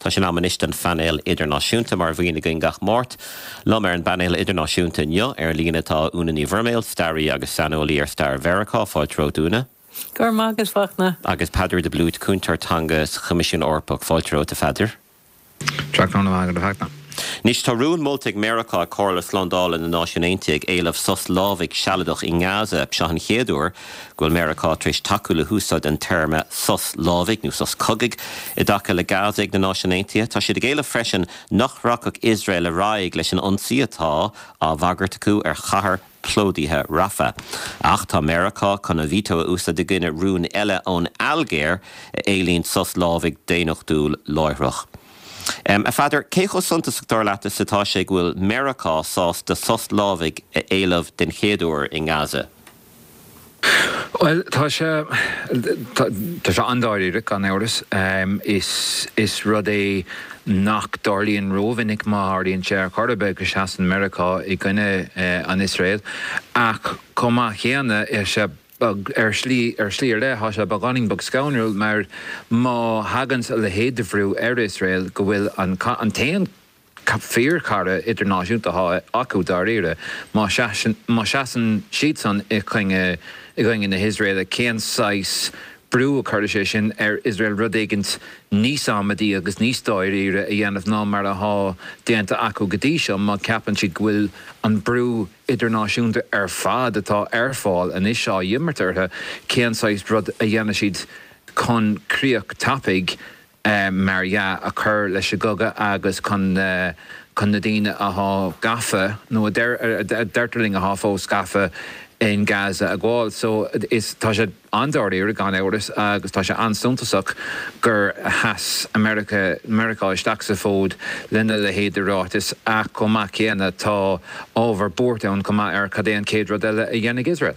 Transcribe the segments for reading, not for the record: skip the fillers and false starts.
Tá sé in am anois don phainéal idirnáisiúnta, mar a bhíonn againn gach Máirt. Liom ar an bpainéal idirnáisiúnta inniu ar líne tá Úna Ní Bhroiméil, staraí agus saineolaí ar stair Mheiriceá. Fáilte romhat, Úna. Go raibh maith agat, Fachtna. Agus Peadar de Blúit, cúntóir teanga sa Choimisiún Eorpach. Fáilte romhat, a Pheadair. Tráthnóna maith agat, a Fhachtna. Anois, tá rún molta ag Meiriceá ag Comhairle Slándála na Náisiún Aontaithe ag éileamh sos lámhaigh sealadach i nGaza. Seo an chéad uair go bhfuil Meiriceá tar éis tacú le húsáid an téarma sos lámhaigh, nó sos cogaidh, i dtaca le Gaza ag na Náisiúin Aontaithe. Tá siad ag éileamh freisin nach rachadh Iosrael ar aghaidh leis an ionsaí atá á bhagairt acu ar chathair plódaithe Rafah. Ach tá Meiriceá chun a veto a úsáid i gcoinne rún eile ón Ailgéir a éilíonn sos lámhaigh daonnachtúil láithreach. A Pheadair, cé chomh suntasach dar leat is atá sé go bhfuil Meiriceá sásta sos lámhaigh a éileamh den chéad uair i nGaza? Bhuel, tá sé, tá sé an-dáiríre, gan amhras. Is, is rud é nach dtarlaíonn rómhinic, má tharlaíonn sé ar chor ar bith, go seasann Meiriceá i gcoinne an Iosrael. Ach chomh maith céanna, tá sé beag, ar shlí, ar shlí ar leith, tá sé beagáinín beag scanrúil mar má thaganns a leithéid de bhrú ar Iosrael go bhfuil an, an t-aon fíorchara idirnáisiúnta atá acu dáiríre. Má sheasann siadsan i gcoinne i gcoinne na hIosraeile, cén saghas brú a chuirfidh sé sin ar Iosrael rud éigint níos amaidí agus níos dáiríre a dhéanamh ná mar atá déanta acu go dtí seo má cheapann siad go bhfuil an brú idirnáisiúnta ar fad atá ar fáil anois á imirt orthu, cén saghas rud a dhéanfaidh siad chun críoch tapaidh mar dhea, a chur leis an gcogadh agus chun chun na daoine athá gafa, nó a deirtear linn athá fós gafa in Gaza a ghabháil. So, is, tá sé an-dáiríre, gan amhras, agus tá sé an-suntasach gur sheas America, Meiriceá isteach sa bhfód lena leithéid de ráiteas, ach chomh maith céanna tá ábhar buartha ann chomh maith ar cad é an chéad rud eile a dhéanfaidh Iosrael.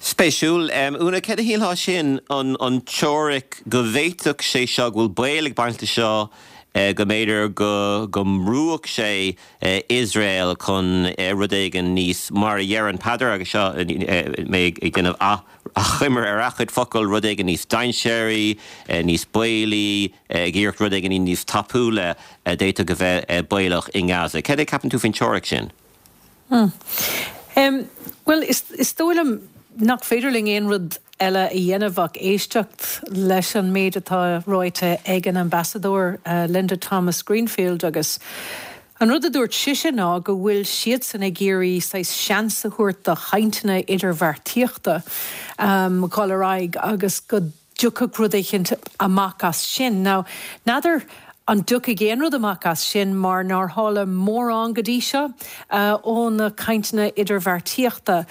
Spéisiúil. Úna, céard a shílfeá sin, an teoiric go bhféadfadh sé seo, go bhfuil baol ag baint leis seo, go mb'fhéidir go go mbrúfadh sé Iosrael chun rud éigin níos, mar a dheireann Peadar, agus seo mé ag déanamh achoimre ar a chuid focal, rud éigin níos dainséaraí, níos baolaí, ag iarracht rud éigin níos tapúla a d'fhéadfadh a bheith baolach i nGaza. Céard é a ceapann tú faoin teoiric sin? Bhuel, is dóigh liom nach féidir linn aon rud eile a dhéanamh ach éisteacht leis an méid atá ráite ag an Ambasadóir Linda Thomas-Greenfield agus an rud a dúirt sise ná go bhfuil siadsan ag iarraidh saghas seans a thabhairt do chainteanna idirbheartaíochta dhul ar aghaidh agus go dtiocfadh rud éicint amach as sin. Now, n'fheadar an dtiocfaidh aon rud amach as sin mar nár tharla mórán go dtí seo ó na cainteanna idirbheartaíochta.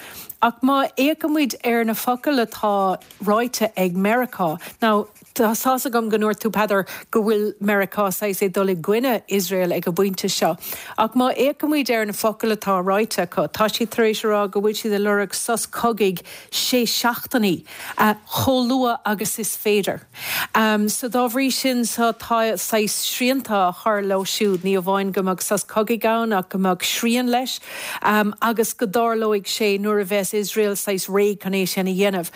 Ach má fhéachaimid ar na focail atá ráite ag Meiriceá, now, tá tá's agam go ndúirt tú, Peadar, go bhfuil Meiriceá saghas ag dul i gcoinne Iosrael ag an bpointe seo. Ach má fhéachaimid ar na focail atá ráite acu, tá siad tar éis a rá go bhfuil siad ag lorg sos cogaidh sé seachtainí. chomh luath agus is féidir. So dá bhrí sin so tá saghas srianta á chur leo siúd, ní amháin go mbeadh sos cogaidh ann ach go mbeadh srian leis agus go dtarlóidh sé nuair a bheas Iosrael saghas réidh chun é sin a dhéanamh.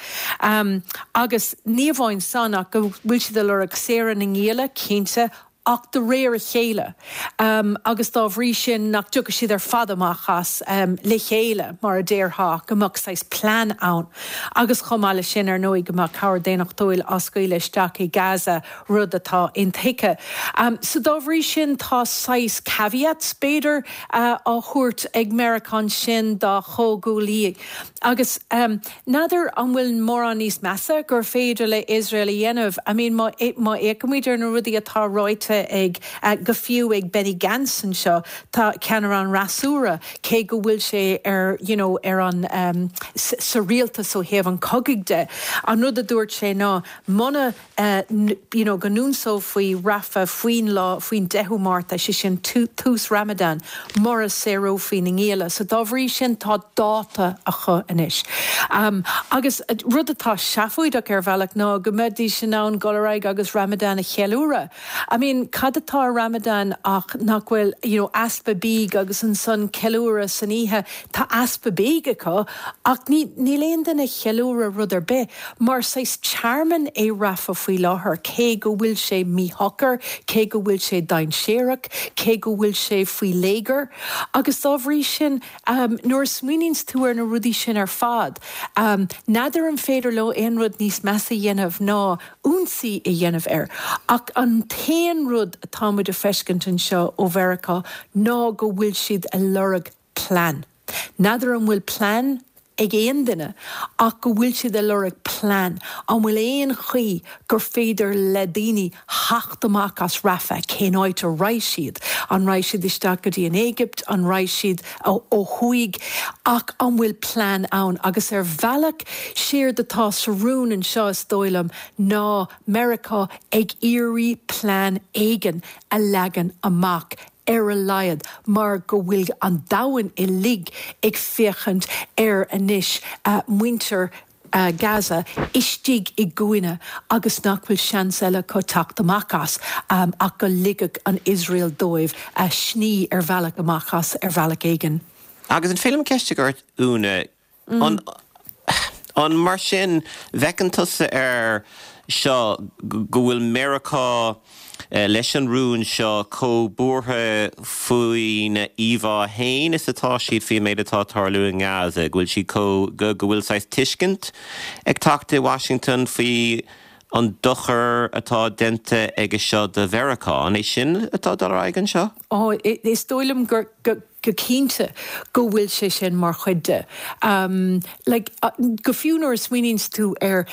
Agus ní amháin san ach go bhfuil siad ag lorg saoradh na ngialla, cinnte, ach de réir a chéile, agus dá bhrí sin nach dtiocfaidh siad ar fad amach as le chéile, mar a déarfá, go mbeadh saghas plean ann. Agus chomh maith leis sin, ar ndóigh, go mbeadh cabhair daonnachtúil á scaoileadh isteach i Gaza, rud atá intuigthe. So dá bhrí sin, tá saghas caveats, b'fhéidir, á thabhairt ag Meiriceá ansin dá chomhghuaillí. Agus n'fheadar an bhfuil mórán níos measa gur féidir le Iosrael a dhéanamh. I mean má má fhéachaimid ar na rudaí atá ráite ag, go fiú ag Benny Gantz anseo, tá ceannaire an fhreasúra, cé go bhfuil sé ar you know ar an sa rialtas ó thaobh an chogaidh de, an rud a dúirt sé ná muna you know, go n-ionsófaí Rafah faoin lá, faoin 10ú Márta, sé sin tús Ramadan, mura saorófaí na ngialla. So dá bhrí sin tá dáta acu anois. Agus rud atá seafóideach ar bhealach ná go mbeidís in ann dul ar aghaidh agus Ramadan a cheiliúradh. I mean. mean, cad atá i Ramadan ach nach bhfuil, you know, easpa bídh agus ansan ceiliúradh san oíche. Tá easpa bídh acu ach ní, níl aon duine ag ceiliúradh rud ar bith mar saghas tearmann é Rafah faoi láthair, cé go bhfuil sé míshocair, cé go bhfuil sé dainséarach, cé go bhfuil sé faoi léigear. Agus dá bhrí sin, nuair a smaoiníonns tú ar na rudaí sin ar fad, n'fheadar an féidir leo aon rud níos measa a dhéanamh ná ionsaí a dhéanamh air. Ach an t-aon rud atá muid a feiscint anseo ó Mheiriceá ná go bhfuil siad a lorg plean. N'fheadar an bhfuil plean ag aon duine ach go bhfuil siad a lorg plean. An bhfuil aon chaoi gur féidir le daoine theacht amach as Rafah? Cén áit a raghaidh siad? An raghaidh siad isteach go dtí an Éigipt? An raghaidh siad ó thuaidh? Ach an bhfuil plean ann? Agus ar bhealach, séard atá sa rún anseo, is dóigh liom, ná Meiriceá ag iarraidh plean éigin a leagan amach ar a laghad, mar go bhfuil an domhan uilig ag féachaint ar anois muintir Gaza istigh i gcúinne agus nach bhfuil seans eile acu teacht amach as ach go ligfeadh an Iosrael dóibh sní ar bhealach amach as ar bhealach éigin. Agus an féidir liom ceist a chur ort, Úna? An, an mar sin, bhfeiceann tusa air seo go bhfuil Meiriceá leis an rún seo chomh buartha faoina íomhá fhéin is atá siad faoin méid atá ag tarlú i nGaza, go bhfuil siad chomh, go bhfuil saghas tuiscint ag teacht i Washington faoi an dochar atá déanta aige seo do Mheiriceá. An é sin atá ag dul ar aghaidh anseo? Ó, is dóigh liom gur, go. go cinnte go bhfuil sé sin mar chuid de. Like, go fiú nuair a smaoiníonns tú air,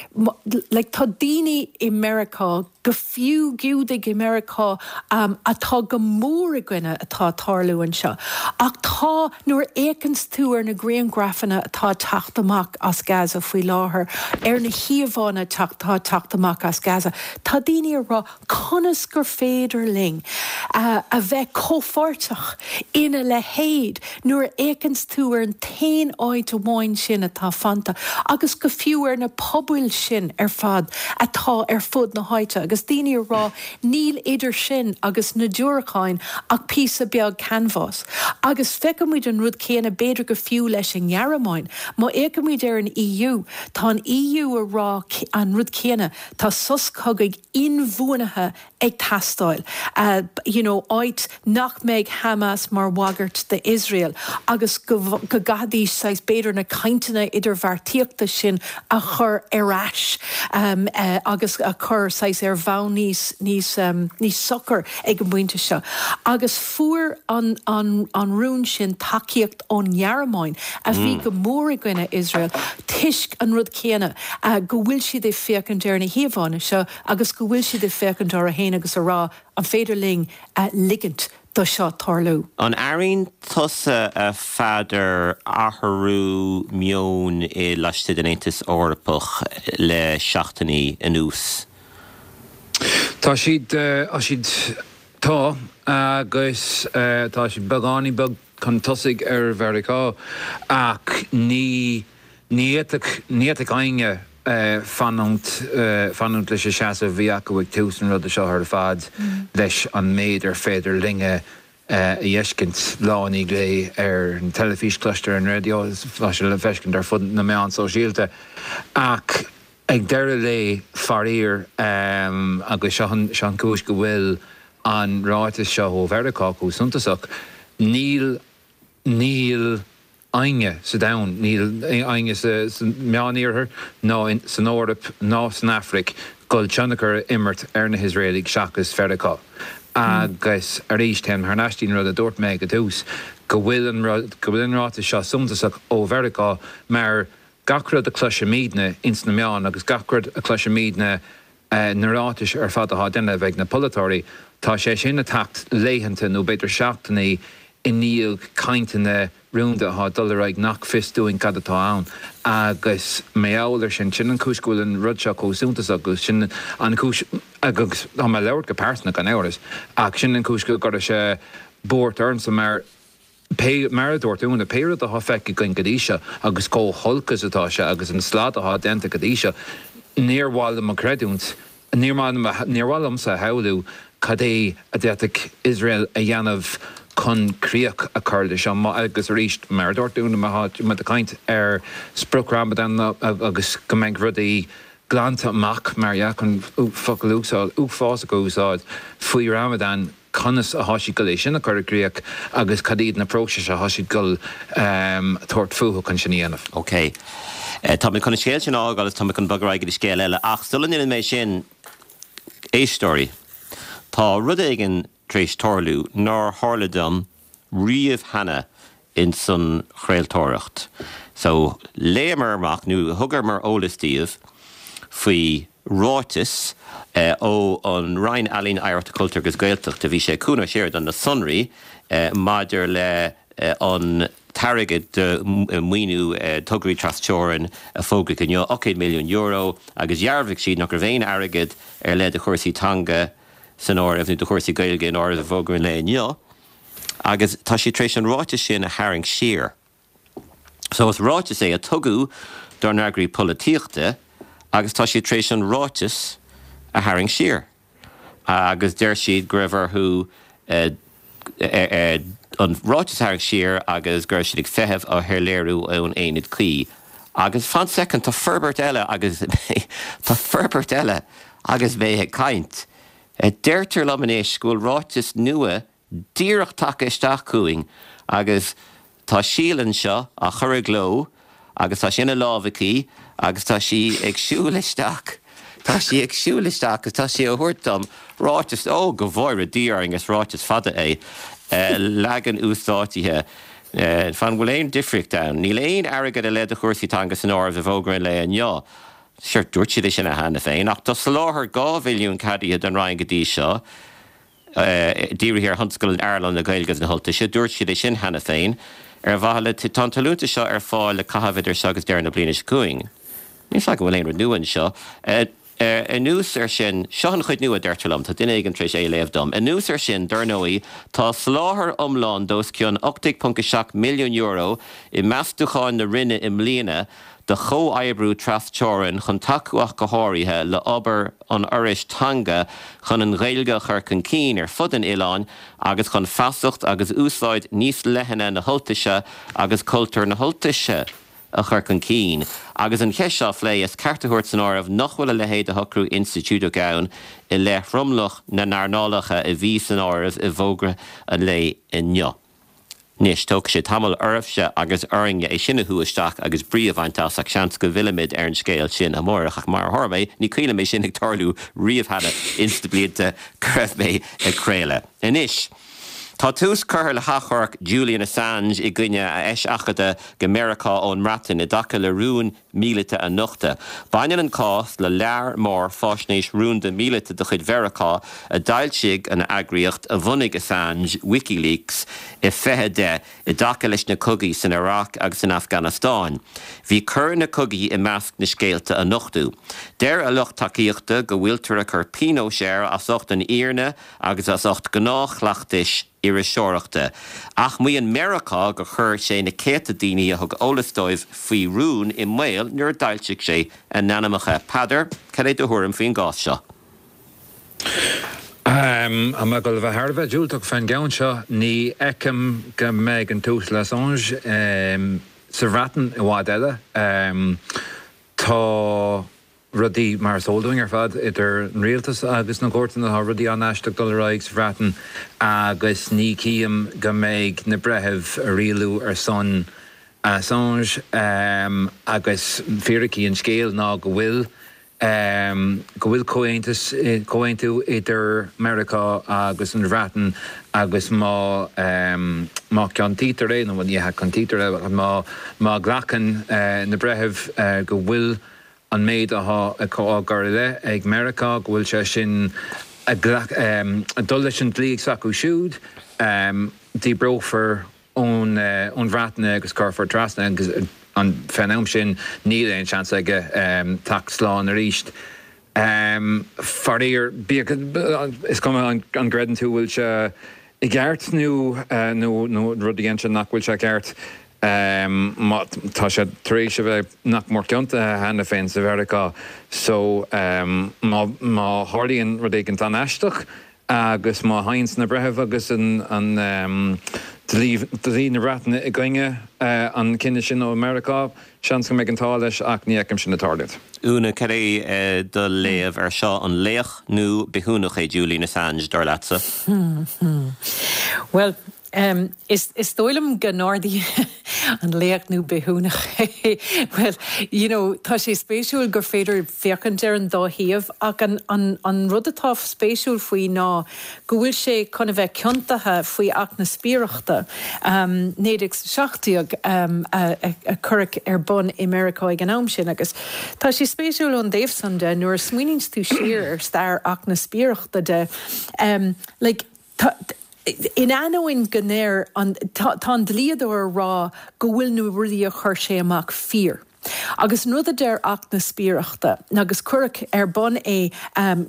like, tá daoine i Meiriceá, go fiú Giúdaigh i Meiriceá, atá go mór i gcoinne atá ag tarlú anseo. Ach tá, nuair a fhéachanns tú ar na grianghrafanna atá ag teacht amach as Gaza faoi láthair, ar na híomhánna atá ag teacht amach as Gaza, tá daoine ag rá, Conas gur féidir linn a bheith comhpháirteach ina leithéid nuair a fhéachanns tú ar an t-aon áit amháin sin atá fanta agus go fiú ar na pobail sin ar fad atá ar fud na háite agus daoine ag rá níl idir sin agus na diúracáin ach píosa beag canbhás. Agus feicimid an rud céanna b'fhéidir go fiú leis an nGearmáin. Má fhéachaimid ar an EU, tá an EU ag rá an rud céanna, tá sos cogaidh inbhuanaithe ag teastáil, you know áit nach mbeidh Hamas mar bhagairt d'Iosrael agus go go gcaithfidís saghas b'fhéidir na cainteanna idirbheartaíochta sin a chur ar ais agus a chur saghas ar bhonn níos níos níos socair ag an bpointe seo. Agus fuair an an an rún sin tacaíocht ón nGearmáin a bhí go mór i gcoinne Iosrael toisc an rud céanna. go bhfuil siad ag féachaint ar na híomhánna seo agus go bhfuil siad ag féachaint orthu féin agus a rá, an féidir linn ligint do seo tarlú? An airíonn tusa, a Pheadair, athrú meoin i laistigh den Aontas Eorpach le seachtainí anuas? Tá siad, tá siad, tá, agus tá siad beagáinín beag chun tosaigh ar Mheiriceá ach ní, Ní fhéadfadh, ní fhéadfadh éinne fanúint, fanúint leis an seasamh a bhí acu ag tús an ruda seo ar fad, leis an méid ar féidir linne a fheiscint lá i ndiaidh lae ar an teilifís, cloiste ar an raidió, tá sé le feiscint ar fud na meán sóisialta. Ach ag deireadh lae, faraor, agus seo an, seo an chúis go bhfuil an ráiteas seo ó Mheiriceá chomh suntasach, níl, níl éinne sa domhan, níl éinne sa Meániarthar ná san Eoraip ná san Afraic dul tionchar a imirt ar na hIosraelaigh seachas Mheiriceá. Agus arís, téim thar n-ais dtí'n rud a dúirt mé ag an tús, go bhfuil an rud, go bhfuil an ráiteas seo suntasach ó Mheiriceá mar gach rud a chloisimidne ins na meáin agus gach rud a chloisimidne na ráitis ar fad atá á déanamh ag na polaiteoirí, tá sé sin ag teacht laethanta nó b'fhéidir seachtainí i ndiaidh cainteanna rúnda atá ag dul ar aghaidh nach fios dúinn cad atá ann. Agus mar gheall ar sin, sin an chúis go bhfuil an rud seo chomh suntasach agus sin an chúis, agus tá mé ag labhairt go pearsanta gan amhras, ach sin an chúis go gcuirfeadh sé buairt ormsa mar, Pé, mar a dúirt Úna, pé rud atá feicthe againn go dtí seo agus chomh holc is atá sé agus an slad atá déanta go dtí seo, níor mhaith liom a chreidiúint, níor mhaith liom, níor mhaith liomsa a shamhlú. cad é a d'fhéadfadh Iosrael a dhéanamh chun críoch a chur leis seo. Agus arís, mar a dúirt tú, má tá muid ag caint ar sprioc Ramadan agus go mbeidh rudaí glanta amach, mar dhea, chun focal uafásach a úsáid, faoi Ramadan, conas atá siad ag dul é sin a chur i gcríoch agus cad iad na próisis atá siad ag dul tabhairt fúthu chun sin a dhéanamh. OK. Tá mé chun an scéal sin a fhágáil agus tá mé chun bogadh ar aghaidh go dtí scéal eile. Ach sula ndéanann mé sin, éisteoirí, tá rud éigin tar éis tarlú nár tharla dom riamh cheana ins an chraoltóireacht. So, léamar amach, nó thugamar eolas daoibh faoi ráiteas ó an Roinn Ealaíon, Oidhreachta, Cultúir agus Gaeltachta, bhí sé ag Cuan Ó Seireadáin na sonraí maidir le an t-airgead do mhaoiniú tograí tras-teorann a fógraíodh inniu, €8 milliún, agus dhearbhaigh siad nach raibh aon airgead ar leith do chúrsaí teanga san áireamh, nó do chúrsaí Gaeilge in áireamh i bhfógra an lae inniu. Agus tá siad tar éis an ráiteas sin a tharraingt siar. So is ráiteas é a tugadh dár n-eagraí polaitíochta agus tá siad tar éis an ráiteas a tharraingt siar. Agus deir siad go raibh orthu an ráiteas a tharraingt siar agus go raibh siad ag feitheamh ar shoiléiriú ón aonad cuí. Agus fan soicind, tá forbairt eile agus tá forbairt eile agus mé ag caint. Deirtear liom anois go bhfuil ráiteas nua díreach tagtha isteach chugainn agus tá Síle anseo á chur i gcló agus tá sé ina lámh aici agus tá sí ag siúl isteach, tá sí ag siúl isteach agus tá sí á thabhairt dom, ráiteas, ó go bhfóire Dia orainn is ráiteas fada é, leagan uasdátaithe. Fan, bhfuil aon difríocht ann? Níl aon airgead ar leith do chúrsaí teanga san áireamh i bhfógra an lae inniu. Sure, dúirt siad é sin cheana féin, ach tá soláthar 2 mhilliún ceadaithe don Roinn go dtí seo, dírithe ar thionscadail in earnáil na Gaeilge agus na hUltaise. Dúirt siad é sin cheana féin. Ar mhaithe le, tá an t-allúntas seo ar fáil le caitheamh idir seo agus deireadh na bliana seo chugainn. Níl 's agam an bhfuil aon rud nua anseo. Anuas air sin, seo an chuid nua, deirtear liom, tá duine éigin tar éis é a léamh dom. Anuas air sin, dar ndóigh, tá soláthar iomlán d'os cionn €18.7 milliún i meastúcháin na Roinne i mbliana do chomhoibriú tras-teorann chun tacú ach go háirithe le obair an Fhorais Teanga chun an Ghaeilge a chur chun cinn ar fud an oileáin agus chun feasacht agus úsáid níos leithne na hUltaise agus cultúr na hUltaise a chur chun cinn. Agus an cheist seo á phlé, is ceart a thabhairt san áireamh nach bhfuil a leithéid de shocrú institiúideach ann i leith thromlach na n-earnálacha a bhí san áireamh i bhfógra an lae inniu. Anois, tógfaidh sé tamall oraibhse agus orainne é sin a shú isteach agus brí a bhaint as, ach seans go bhfillfimid ar an scéal sin amárach. Ach mar a tharla é, ní cuimhin liom é sin ag tarlú riamh cheana ins na blianta go raibh mé ag craoladh. Anois, tá tús curtha le hachomharc Julian Assange i gcoinne a eiseachadta go Meiriceá ón mBreatain i dtaca le rún míleata a nochtadh. Baineann an cás le lear mór faisnéis rúnda míleata de chuid Mheiriceá a d'fhoilsigh an eagraíocht a bhunaigh Assange, WikiLeaks, i 2010 i dtaca leis na cogaí san Iaráic agus san Afganastáin. Bhí coir na cogaí i measc na scéalta a nochtadh. Deir a lucht tacaíochta go bhfuiltear ag cur pionóis air as ucht an fhírinne agus as ucht gnáthchleachtais iriseoireachta. Ach maíonn Meiriceá gur chuir sé na céadta daoine a thug eolas dóibh faoi rún i mbaol nuair a d'fhoilsigh sé a n-ainmneacha. Peadar, cad é do thuairim faoin gcás seo? Tá mé ag dul a bheith thar a bheith diúltach fán gceann seo. Ní fheicim go mbeidh an tUasal Assange sa Bhreatain i bhfad eile. Tá. rudaí, mar is eol dúinn ar fad, idir an rialtas agus na cúirteanna, tá rudaí an-aisteach ag dul ar aghaidh sa Bhreatain agus ní chím go mbeidh na breithimh ag rialú ar son Assange agus fíricí an scéil ná go bhfuil go bhfuil comhaontas, comhaontú idir Meiriceá agus an Bhreatain agus má má ciontaítear é, nó ní hea ciontaítear é, má má ghlacann na breithimh go bhfuil an méid atá á gcur i leith ag Meiriceá, go bhfuil sé sin ag dul leis an dlí s'acu siúd, díbreofar ón Bhreatain é agus cuirfear trasna agus fén am sin níl aon seans aige teacht slán arís. Faraor, bíodh, is cuma an gcreideann tú bhfuil sé i gceart nó nó rud a dhéanann sé nach bhfuil sé ceart, má tá sé tar éis a bheith nach mór ciontaithe cheana féin sa Mheiriceá so má má tharlaíonn rud éigin an-aisteach. Agus má théanns na breithimh agus an dlí na Breataine i gcoinne an chinnidh sin ó Meiriceá, seans go mbeidh an t-ádh leis ach ní fheicim sin ag tarlúint. Úna, cad é do léamh ar seo? An laoch nó bithiúnach é Julian Assange, dar leatsa? Bhuel, Is dóigh liom go n-ardaíonn an laoch nó bithiúnach é. Bhuel, you know, tá sé spéisiúil gur féidir féachaint ar an dá thaobh ach an, an, an rud atá spéisiúil faoi ná go bhfuil sé chun a bheith ciontaithe faoi Acht na Spiaireachta, 1917 a cuireadh ar bun i Meiriceá ag an am sin agus tá sé spéisiúil ón dtaobh san de nuair a smaoiníonns tú siar ar stair Acht na Spiaireachta de, like, Tá, in ainneoin go ndeir an, tá, tá an dlíodóir a rá go bhfuil na rudaí a chuir sé amach fíor. Agus an rud a deir Acht na Spiaireachta, agus cuireadh ar bun é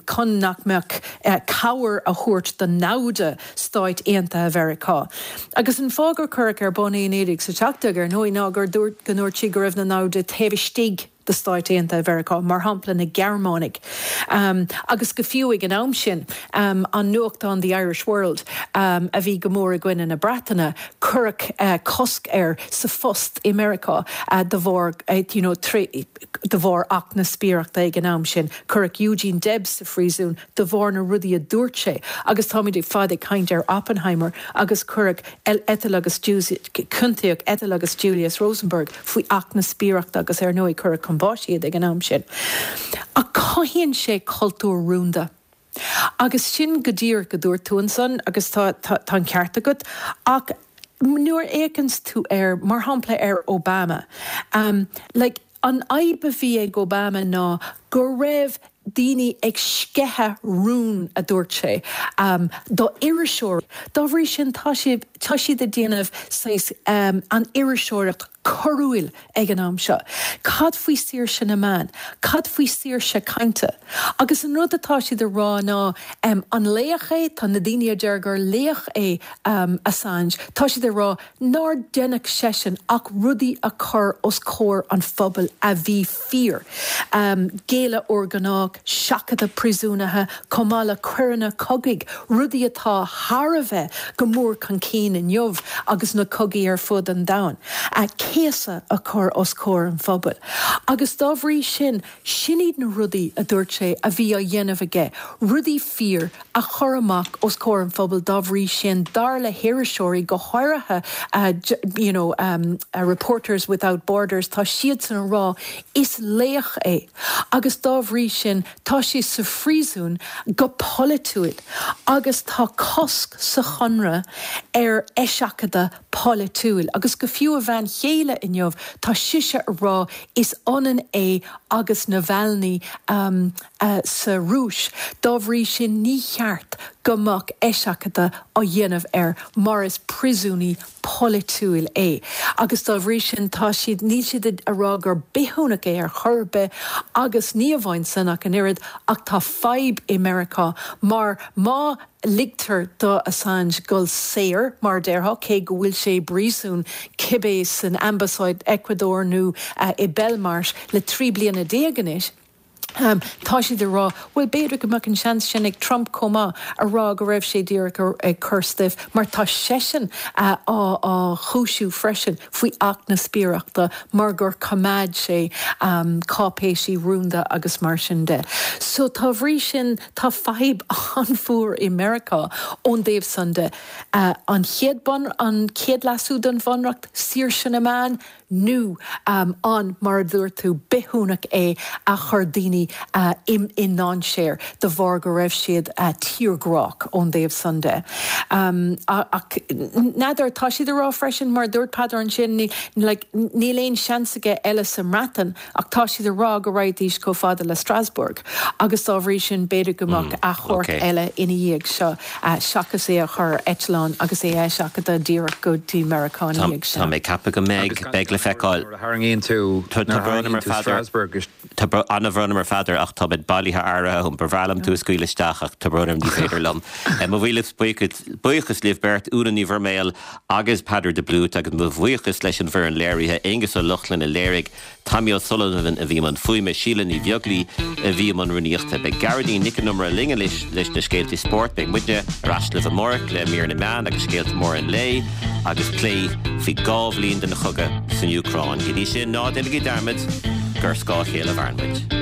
chun nach mbeadh cabhair a thabhairt do namhda Stáit Aontaithe Mheiriceá. Agus an fáth gur cuireadh ar bun é i 1917, ar ndóigh, ná gur dúirt, go ndúirt siad go raibh na namhda taobh istigh de Stáit Aontaithe Mheiriceá, mar shampla na Gearmánaigh, agus go fiú ag an am sin, an nuachtán The Irish World, a bhí go mór i gcoinne na Breataine, cuireadh cosc air sa phost i Meiriceá de bharr, you know, de bharr Acht na Spiaireachta ag an am sin. Cuireadh Eugene Debs sa phríosún de bharr na rudaí a dúirt sé agus táimid ag fad ag caint ar Oppenheimer agus cuireadh Ethel agus ciontaíodh Ethel agus Julius Rosenberg faoi Acht na Spiaireachta agus ar ndóigh cuireadh chun báis iad ag an am sin. Ach cothaíonn sé cultúr rúnda. Agus sin go díreach a dúirt tú ansan agus tá tá an ceart agat ach nuair a fhéachanns tú air, mar shampla ar Obama, like an fhadhb a bhí ag Obama ná go raibh daoine ag sceitheadh rún, a dúirt sé, do iriseoirí. Dá bhrí sin, tá sé, tá siad ag déanamh saghas an iriseoireacht coiriúil ag an am seo. Cad faoi saoirse na meán? Cad faoi saoirse cainte? Agus an rud atá siad a rá ná, an laoch é? Tá na daoine a deir gur laoch é Assange, tá siad ag rá nár deineadh seisean ach rudaí a chur os comhair an phobail a bhí fíor. Géilleadh urghnách, seachadadh príosúnaithe, chomh maith le coireanna cogaidh, rudaí atá thar a bheith go mór chun cinn inniu agus na cogaí ar fud an domhain, céasadh a chur os comhair an phobail. Agus dá bhrí sin, sin iad na rudaí, a dúirt sé, a bhí á dhéanamh aige, rudaí fíor a chur amach os comhair an phobail dá bhrí sin, dar le hiriseoirí, go háirithe you know Reporters Without Borders, tá siadsan a rá is laoch é agus dá bhrí sin tá sé sa phríosún go polaitiúil agus tá cosc sa chonradh ar eiseachadadh polaitiúil agus go fiú a bhean chéile inniu tá sise a rá is ionann é agus Navalny sa Rúis. Dá bhrí sin ní cheart go mbeadh eiseachadadh á dhéanamh air mar is príosúnaí polaitiúil é. Agus dá bhrí sin tá siad, níl siad a rá gur bithiúnach é ar chor ar bith agus ní amháin san ach an oiread ach tá fadhb i Meiriceá mar má ligtear do Assange dul saor, mar a déarfá, cé go bhfuil sé i bpríosún cibé san ambasáid Ecuador nó i Belmarsh le 13 bliana anois. Tá siad ag rá, bhuel, b'fhéidir go mbeadh an seans sin ag Trump chomh maith, a rá go raibh sé díreach ag cur stuif, mar tá seisean á chúisiú freisin faoi Acht na Spiaireachta mar gur choimeád sé cáipéisí rúnda agus mar sin de. So, dá bhrí sin, tá fadhb an-mhór i Meiriceá ón dtaobh san de. An chéad bun, an chéad leasú don Bhunreacht, saoirse na meán, nó an, mar a dúirt tú, bithiúnach é a chuir daoine i ndainséar de bharr go raibh siad tírghrách ón dtaobh san de. Ach n'fheadar, tá siad ag rá freisin, mar a dúirt Peadar ansin, níl aon seans aige eile sa mBreatain ach tá siad ag rá go raghaidís chomh fada le Strasbourg agus dá bhrí sin b'fhéidir go mbeadh achomharc eile ina dhiaidh seo seachas é a chur ar eitleán agus é a eiseachadadh díreach go dtí Meiriceá ina dhiaidh sin. Tá mé ag ceapadh go mbeidh, beidh le feiceáil. Nuair a tharraingíonn tú, nuair a tharraingíonn tú Strasbourg. Tá an-bhrón orm a Pheadair. Pheadair ach tá mé bailithe áirithe agam. Ba bhreá liom tú a scaoileadh isteach ach tá brón orm ní féidir liom. Mo mhíle buíochas libh beirt, Úna Ní Mhuirméil agus Peadar de Blúit agus mo bhuíochas leis an bhfoireann léirithe, Aengus Ó Lochlainn a léirigh, Tommy O'Sullivan a bhí i mbun fuaime, Síle Ní Bheaglaoi a bhí i mbun rúnaíochta. Beidh Gearóidín Nic an Iomaire linn anois leis na scéalta spóirt. Beidh muidne ar ais libh amárach le mír na meán agus scéalta móra an lae agus plé faoi 2 bhliain den chogadh san Úcráin. Go dtí sin, ná déanaigí dearmad gur ar scáth a chéile a mhaireann muid.